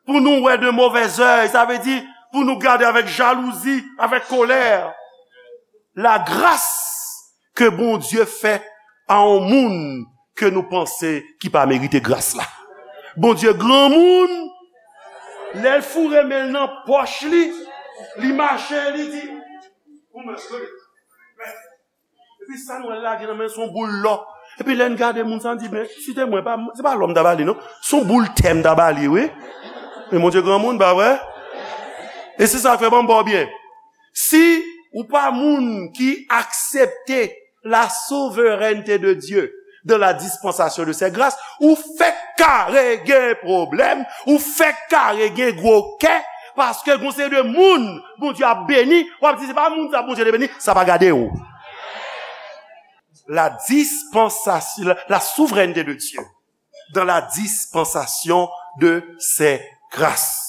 pou nou wè de movèzèy, sa vle di pou nou gade avèk jalouzi, avèk kolè. Lagras ke Bondye fè a yon moun ke nou panse ki pa merite gras la. Bondye granmoun, lè l foure men l nan pòch li, li mache, li di, epi sa nou wè l lage nan men l, se yon boul lò. Epi lè n gade moun sa, n di, men, si te mwen, pa, se pa lò m ta ba li, non. Se yon boul tè m ta ba li, wi. Men Bondye granmoun, pa vre? E se sa k fè, ban m ba w byen. Si ou pa moun ki aksepte la souveraineté de Dieu dans la dispensation de ses grâces, ou fèk kare gen pwoblèm, ou fèk kare gen gwo kè, paske gon seri de moun Bondye ap beni, w ap di, se pa moun sa Bondye te beni, sa pa gade w. La dispensation, la, la souveraineté de Dieu dans la dispensation de ses grâces.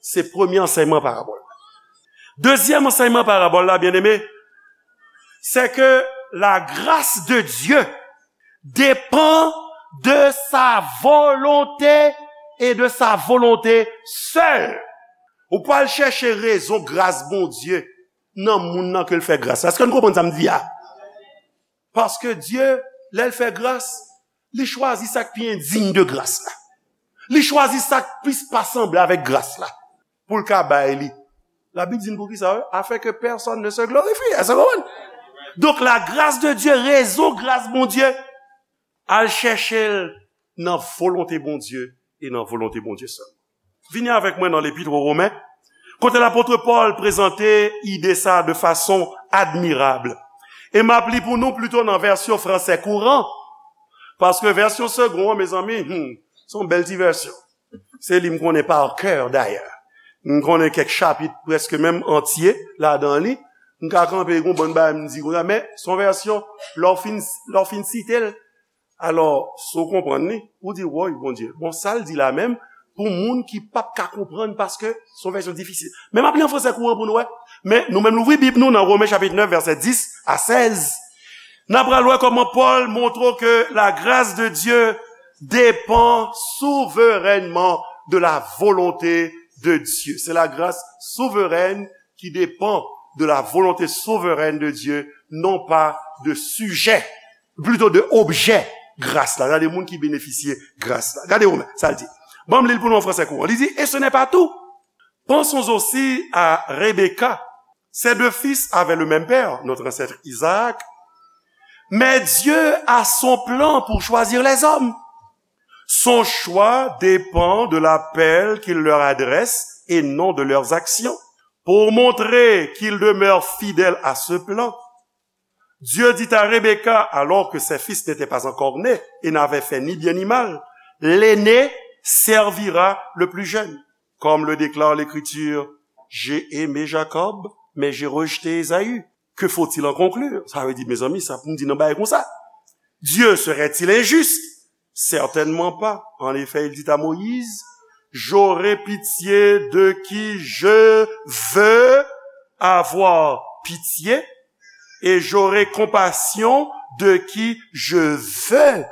Se premye ansèyman parabòl. Dezyèm ansèyman parabòl la, byeneme, c'est que la grâce de Dieu dépend de sa volonté et de sa volonté seule. Ou pral chèche rezon gras Bondye nan moun nan ke l fè gras la. Èske nou konprann sa m di a? Paske Dye, lè l fè gras, li chwazi sa k pi endiy de gras la. Li chwazi sa k plis pa sanble avèk gras la pou l ka bay li. Labib di n poukisa, wi, afin que personne ne se glorifie. Èske w konprann? Donk, la grâce de Dieu, rezon gras Bondye, al chèche l nan volonte Bondye e nan volonte Bondye sèlman. Vini avèk mwen nan lepit o Women, kote lapot Pòl prezante ide sa de fason admirab. E m ap li pou nou plito nan vèsyon fransè kouran, paske vèsyon Segond an, mezanmi, hmm, se yon bèl ti vèsyon. Se li m konnen pa kè, dayè. M konnen kèk chapit prèske menm antye ladan li. M ka kanpe, gon bann bagay m di konsa, men se yon vèsyon, lè w fin, lè w fin site l, alò, si w konprann li, ou di, woy, Bondye, bon, sa l di la menm, pou moun ki p ap ka konprann, paske se yon vèsyon difisil. Men m ap li an fransè kouran pou nou wè. Men nou menm louvri Bib nou nan Women chapit nèf, vèsè dis a sèz. N ap pral wè kòman Pòl montre ke la grâce de Dieu dépend souverainement de la volonté de Dieu. C'est la grâce souveraine qui dépend de la volonté souveraine de Dieu, non pas de sujet, plutôt de objet gras la. Gade moun ki benefisye gras la. Gade Women, sa l di. Ban m li l pou nou an fransè kouran. Li di, et ce n'est pas tout. Pensons aussi à Rebecca. Ses deux fils avaient le même père, notre ancêtre Isaac. Mais Dieu a son plan pour choisir les hommes. Son choix dépend de l'appel qu'il leur adresse et non de leurs actions. Pour montrer qu'il demeure fidèle à ce plan, Dieu dit à Rebecca, alors que ses fils n'étaient pas encore nés et n'avaient fait ni bien ni mal, l'aîné servira le plus jeune. Comme le déclare l'Écriture, j'ai aimé Jacob, mais j'ai rejeté Ésaü. Que faut-il en conclure? Sa vle di, mezanmi, sa pou n di nan bagay konsa. Dieu serait-il injuste? Certainement pas. En effet, il dit à Moïse, j'aurai pitié de qui je veux avoir pitié, et j'aurai compassion de qui je veux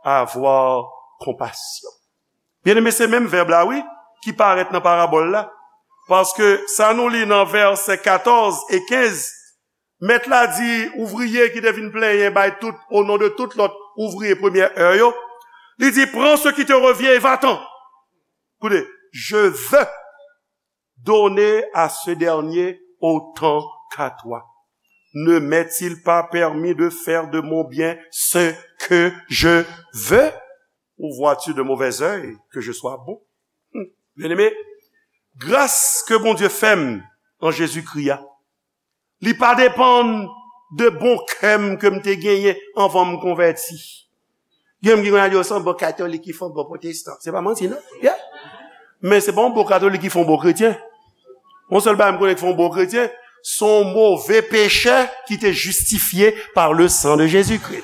avoir compassion. Byeneme, se menm vèb la, wi, ki parèt nan parabòl la. Paske sa nou li nan vèsè katòz e kenz, mèt la di ouvriye ki te vin plenyen bay tout, au nom de tout lòt ouvriye premyè è yo, li di, prends ce qui te revient et va-t'en. Koute, je veux donner à ce dernier autant qu'à toi. Ne m'est-il pas permis de faire de mon bien ce que je veux? Ou vois-tu de mauvais œil que je sois bon? Hmm. Byeneme, gras ke Bondye fè m an Jezikri a, li pa depann de bon kè m ke m te genyen anvan m konvèti. Gen moun ki konn al di, "Oh, se yon bon katolik ki fè yon bon pwotestan." Se pa manti, non? Yeah. Men se pa yon bon katolik ki fè yon bon kretyen. Yon sèl bagay m konnen ki fè yon bon kretyen, se yon move pechè ki te jistifye pa le san de Jezikri.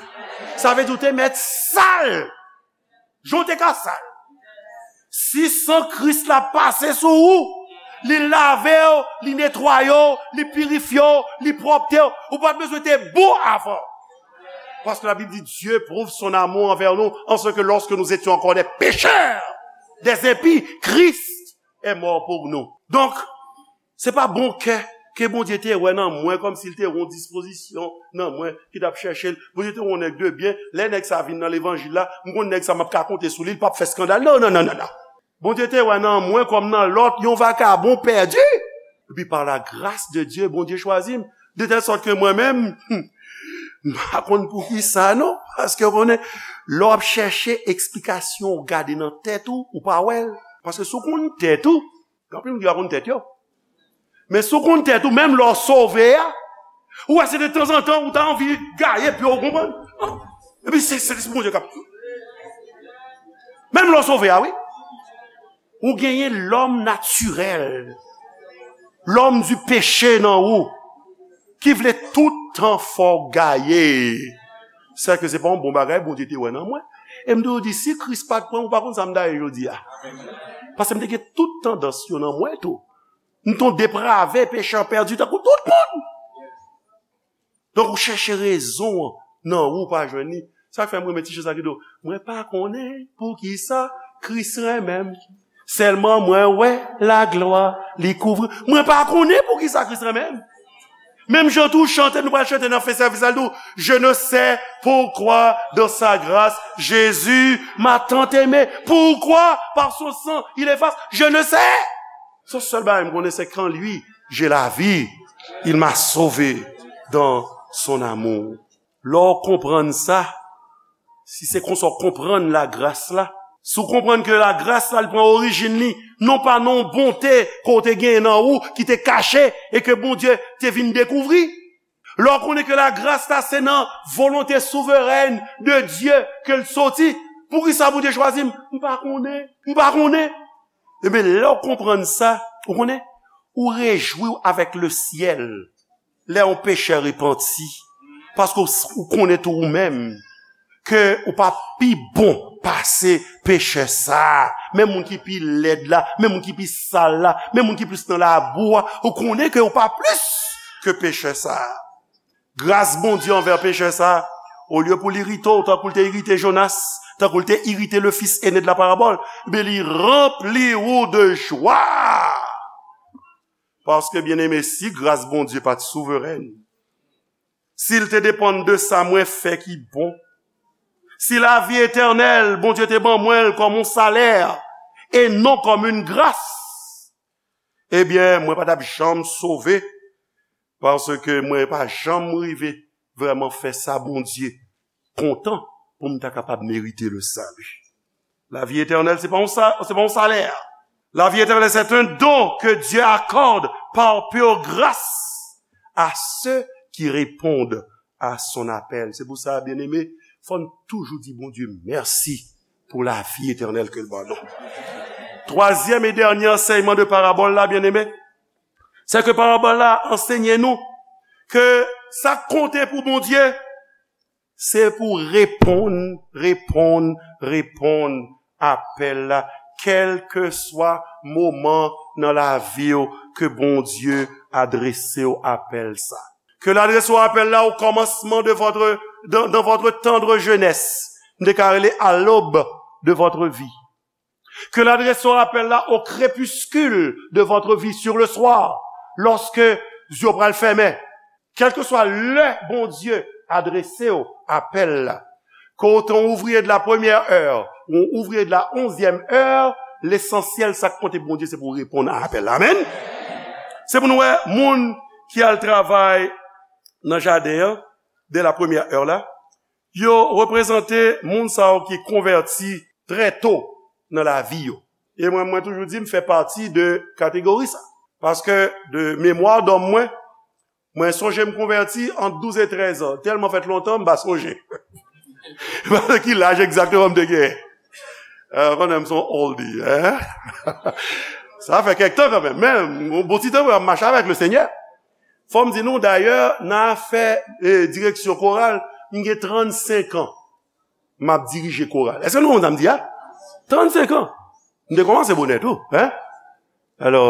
Sa vle di ou te mèt sal. Jan w te ka sal. Si san Kris la pase sou ou, li lave w, li netwaye w, li pirifye w, li pwòpte w, ou pa t bezwen te bon avan. Paske Labib di, Dieu prouve son amour envers nous en ce que lorsque nous étions encore des pécheurs, des impies, Christ est mort pour nous. Donk, se pa bon kè ke Bondye te wè nan mwen, kòmsi l te wè yon dispozisyon nan mwen ki t ap chèche l. Bondye te wè yon nèg de byen. Lè nèg sa vin nan levanjil la, m konn nèg sa m ap ka konte sou li, l p ap fè eskandal. Non, non, non, non, non. Bondye te wè nan mwen kòm nan lòt yon vakabon pèdi. Epi pa la gras de Dye, Bondye chwazi m. De tèl sòt ke mwen menm, m pa konn poukisa non. Paske w konnen, lè w ap chèche eksplikasyon, w gade nan tèt ou, ou pa wè l. Paske si w konn tèt ou, gen anpil moun ki pa konn tèt yo. Men si w konn tèt ou, menm lè w sove a, ou wè se de tanzantan ou ta anvi gaye pye w, ou konprann? Epi se, se, se Bondye k ap. Menm lè w sove a, wi. Ou genyen lòm natirèl, lòm di peche nan ou, ki vle tout tan fè w gaye. Sèke se pa yon bon bagay Bondye te wè nan mwen. E m toujou di, si Kris pa t pran m, ou pa konn sa m ta ye jodi a. Paske m te gen tout tandans yo nan mwen tou. M te yon deprave, pechè pèdi, tankou tout moun. Donk, ou chèche rezon an nan ou, ou pa jwenn li. Sa k fè m renmen ti chan sa ki di w, mwen pa konnen poukisa Kris renmen m. Sèlman mwen wè laglwa li kouvri. Mwen pa konnen poukisa Kris renmen m. Menm jan tou chante, nou pral chante nan fen sèvis la, nou, je ne sais pourquoi dans sa grâce, Jésus m'a tant aimé. Pourquoi? Par son sang, il efface. Je ne sais. Son sèl bagay m konnen, se kan li, j'ai la vie, il m'a sauvé dans son amour. Lè w konprann sa, si se konsa w konprann lagras la, si w konprann ke lagras la, li pran orijin li, non pa nan yon bonte ke w te genyen nan ou, ki te kache, e ke Bondye te vin dekouvri. Lè w konnen ke lagras la, se nan volonte souverèn de Dye ke l soti, poukisa Bondye chwazi m? M pa konnen. M pa konnen. Ebyen, lè w konprann sa, ou konnen, ou rejwi w avèk le syèl. Lè yon pechè repanti, paske w, ou konnen tou ou menm ke ou pa pi bon pase pechè sa a. Men moun ki pi lèd la, men moun ki pi sal la, men moun ki plis nan labou a, ou konnen ke ou pa plis ke pechè sa a. Gras Bondye anvè pechè sa a, olye pou l irite w tankou l te irite Jonas, tankou l te irite le fils aîné de la parabole, men li ranpli ou de jwa. Paske, byeneme, si gras Bondye pa t souverèn, si l te depann de sa mwen fè ki bon, si lavi etènèl, Bondye te ban mwen l kòm yon salè, e non kòm yon gras, ebyen, mwen pa t ap janm sove, paske mwen pa janm rive vrèman fè sa Bondye kontan pou m ta kapab merite le salut. La vie éternelle, se pa yon sa, se pa yon salè. La vie éternelle, c'est un don que Dieu accorde par pure grâce à ceux qui répondent à son appel. Se pou sa, byeneme, fò n toujou di Bondye mèsi pou lavi etènèl ke l ban nou. Twazyèm e dènye ansèyman de parabòl la, byeneme, se ke parabòl la ansenye nou ke sa k konte pou Bondye, se pou reponn, reponn, reponn apèl la, kèlkeswa moman nan lavi w ke Bondye adrese w apèl sa. Que l'adresse au appel là au commencement de votre, dans, dans votre tendre jeunesse. M te ka rele à l'aube de votre vie. Que l'adresse au appel là au crépuscule de votre vie, sur le soir, lorsque zye w pral fèmen. Kèlkeswa lè Bondye adrese w apèl la, ke w te yon ouvriye de la première heure ou yon ouvriye de la onzième heure, lesansyèl, sa k konte pou Bondye, se pou w reponn a apèl la. Amèn. Se pou nou wè, moun ki al travay nan jaden an, de la première heure la, yo reprezante moun sa yo ki konvèti trè to nan lavi yo. E mwen, mwen toujou di, m fè pati de kategori sa. Paske de memwa dòm mwen, mwen sonje m konvèti ant douz e trèz an. Tèlman fèt lontan, m pa sonje. Ki laj egzakteman m te genyen? Ou konnen m se yon oldie, hein? Sa fè kèk tan kanmenm, men yon bon ti tan mwen ap mache avèk Lesenyè. Fò m di nou, dayè, nan afè, eh, direksyon koral, m gen trannsenk an m ap dirije koral. Èske nou konprann sa m di a? Trannsenk an. M te kòmanse bonè tou, hein? Alò,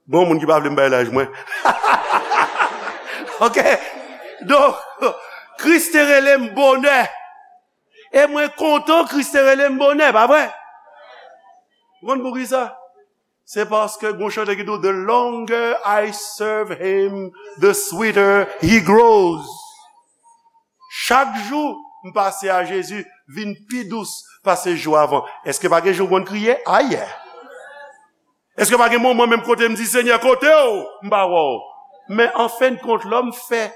bon, moun ki pa vle m bay laj mwen. Ok? Donk, Kris te rele m bonè. E mwen kontan Kris te rele m bonè, pa vre? Ou konn poukisa? Se paske gon chante ki di w, "The longer I serve him, the sweeter he grows." Chak jou m pase a Jezi vin pi dous pase jou avan. Èske pa gen jou w konn kriye? Ayè! Èske pa gen moman menm kote m di, "Senyè, kote w? M pa wè w." Men an fen de kont, lè m fè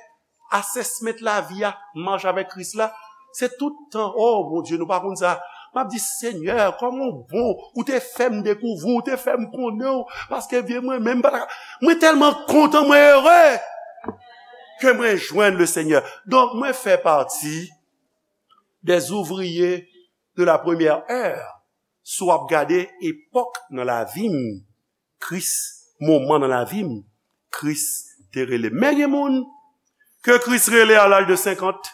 assessment lavi a, mache avèk Kris la, se tout tan, "Oh, Bondye, nou pa konn sa." M ap di, "Senyè, kòman w bon, ou te fè m dekouvri w, ou te fè m konnen w, paske vye mwen menm pa ta ka." Mwen tèlman kontan, mwen ere ke mwen jwenn Lesenyè. Donk, mwen fè pati des ouvriers de la première heure. Si w ap gade epòk nan lavi m, Kris, moman nan lavi m, Kris te rele m. Men gen moun ke Kris rele a laj de senkant.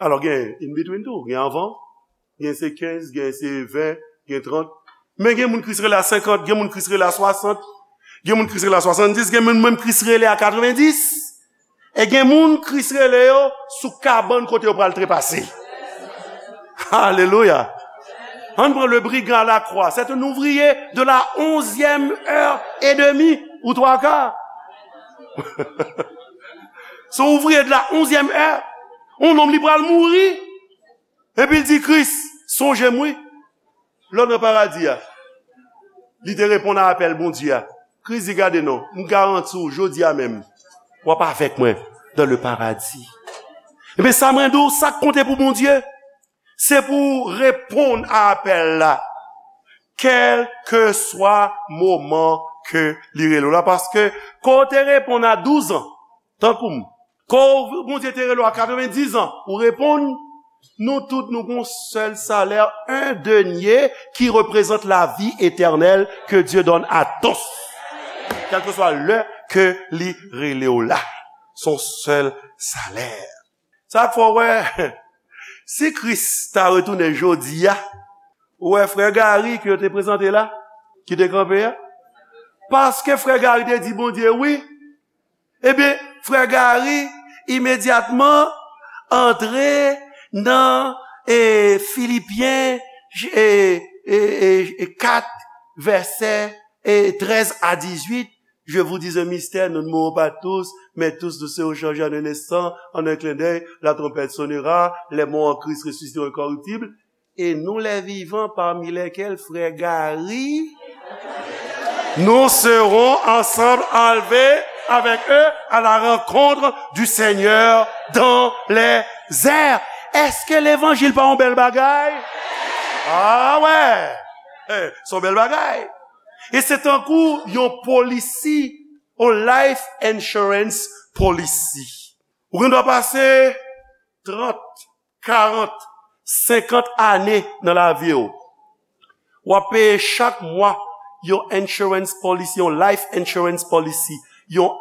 Alò, gen in between tou, gen anvan, gen se kenz, gen se ven, gen trant. Men gen moun Kris rele a senkant, gen moun Kris rele a swasant, gen moun Kris rele a swasanndis, gen moun menm Kris rele a katrevenndis. E gen moun Kris rele yo sou kabann kote yo pral trepase. Alelouya. Ann pran le brigand à la croix. C'est un ouvrier de la onzième heure et demie ou trois quarts. Se yon ouvriye de la onzyèm è. Yon nonm li pral mouri. Epi l di Kris, sonje m wi. Lè w nan paradi a. Li te reponn a apèl Bondye a. Kris di, gade non, m garanti w, jodi a menm, w ap avèk mwen dans le paradis. Ebyen, sa mwen di w, sa k konte pou Bondye, se pou w reponn a apèl la. Kèlkeswa moman ke li rele w la. Paske, ke w te reponn a douz an, tankou m, ke w, Bondye te rele w a katrevendiz an, ou reponn, nou tout, nou gon sèl salè, un denier qui représente la vie éternelle que Dieu donne à tous. Kèlkeswa lè ke li rele w la. Se yon sèl salè. Sa k fè w wè, si Kris ta retounen jodi a, ou wè frè Gary ke yo te prezante la, ki te kanpe a? Paske frè Gary te di Bondye wi, ebyen, frè Gary imedyatman antre nan, e, Filipyen, e, e, e, e, kat, vèsè, e, trèz a dizuit. Je vous dis un mystère, nous ne mourrons pas tous, mais tous nous serons changés en un instant, en un clin d'œil, la trompette sonnera, les morts en Christ ressusciteront incorruptibles, et nous les vivants, parmi lesquels frère Gary, nous serons ensemble enlevés avec eux à la rencontre du Seigneur dans les airs. Èske levanjil pa yon bèl bagay? Ah wè! Eh, se yon bèl bagay. E se tankou yon polisi, yon life insurance policy. Ou gen dwa pase trant, karant, senkant ane nan lavi w. W ap peye chak mwa yon insurance policy, yon life insurance policy, yon,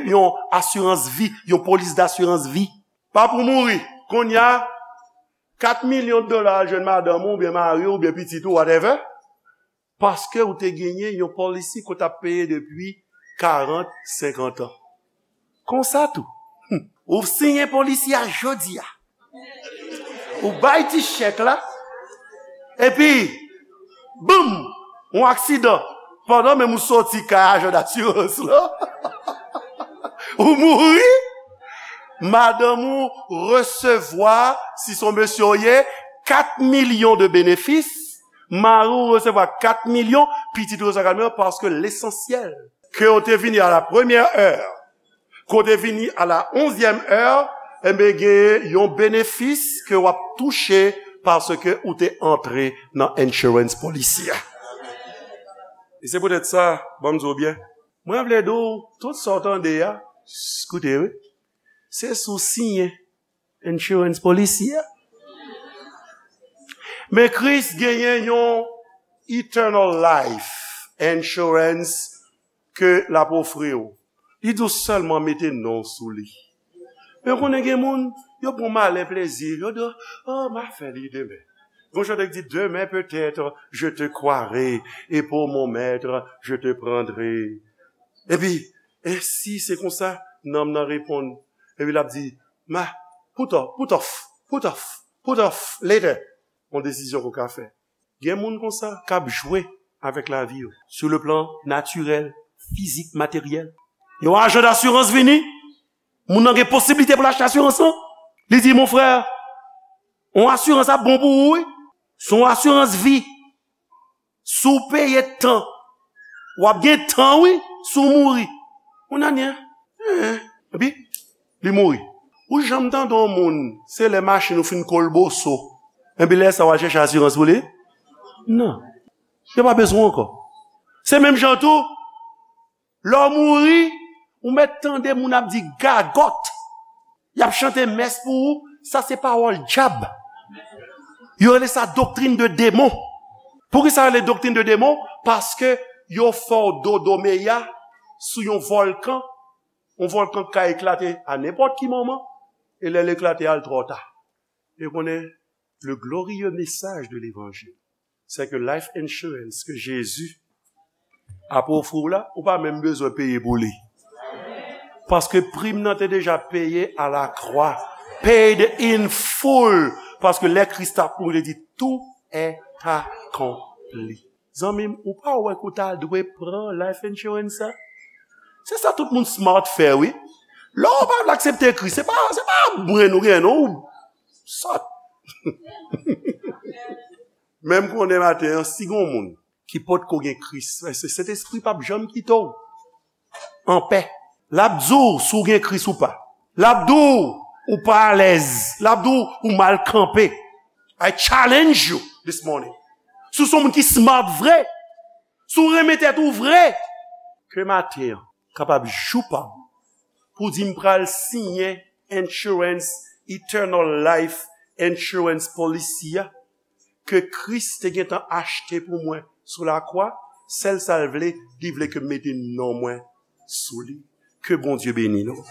yon asirans vi, yon polis dasirans vi. Pa pou mouri. Kounye a, kat milyon dola al jwenn madanm ou, oubyen mari w, oubyen pitit ou, whatever. Paske ou te genyen yon policy ke w t ap peye depi karant, senkant an. Konsa tou, ou siyen policy a jodi a. Ou bay ti chèk la, epi, boum, yon aksidan. Pandan menm ou soti kay ajan dasirans lan, ou mouri, madanm ou resevwa, si se yon mesye w ye, kat milyon de benefis, mari w resevwa kat milyon, pitit ou resevwa kat milyon, paske lesansyèl, ke w te vini à la première heure, ke w te vini à la onzième heure, enben, gen yon benefis ke w ap touche paske ou te antre nan insurance policy a. E se poutèt sa, ban m di w byen, mwen vle di w, tout sa w tande a, s-, koute, wi, se si w siyen insurance policy a. Men Kris genyen yon eternal life insurance ke l ap ofri w. Li di w sèlman mete non w sou li. Men w konnen gen moun, yo pran malen plezi, yo di, oh, m a fè li demen. Gon chante ki di, demain peut-être je te croirai, et pour mon maître je te prendrai. Epi, e si se konsa, nanm nan reponn, epi l ap di, ma, put off, put off, put off, put off, later. Yon desizyon ke w ka fè. Gen moun konsa k ap jwe avèk lavi yo, sur le plan naturel, fizik, materyèl. Yon ajan dasirans vini, moun nan gen posiblite pou l achte asirans lan. Li di, mon frè, yon asirans ap bon pou ou, wi. Se yon asirans vi. Si w peye tan, w ap gen tan, wi, si w mouri. Yon ane, en, epi, li mouri. Ou janm tande yon moun, se lè machin ou fin kolboso, epi lè sa w al chèche asirans pou li? Non. Yo pa bezwen w ankò. Se menm jan tou, lè w mouri, ou mèt tande moun ap di gagòt. Y ap chante mès pou ou, sa se pawòl dyab. Yo rele sa doktrin de demon. Poukisa yo rele doktrin de demon? Paske yo fè w dodo meya sou yon vòlkan. Yon vòlkan k ka eklate a nenpòt ki moman. E lè l eklate a, l twò ta. E konnen, le glorieux message de l'évangile, c'est que life insurance ke Jezi ap ofri w la, ou pa menm bezwen peye pou li. Paske prim nan te deja peye a la kwa. Paid in full. Paske lè Kris t ap mouri, li di, tout est accompli. Zanmi m, ou pa wè ke w ta dwe pran life insurance sa? Se sa tout moun smart fè, wi. Lè w pa vle aksepte Kris, se pa, se pa mwen nou gen, non. Sòt. Men m konnen maten an, si gen yon moun ki potko gen Kris, se Sentespri p ap janm kite w anpè. L ap di w si w gen Kris ou pa. L ap di w ou pa alèz. L ap di w ou mal kanpe. I challenge you this morning. Si w se yon moun ki smart vre, si w renmen tèt ou vre, ke maten an kapab jou pa w pou di m pral siyen insurance, eternal life insurance policy a ke Kris te gentan achte pou mwen sou lakwa, sèl sa l vle, li vle ke m mete non mwen sou li. Ke Bondye beni nou.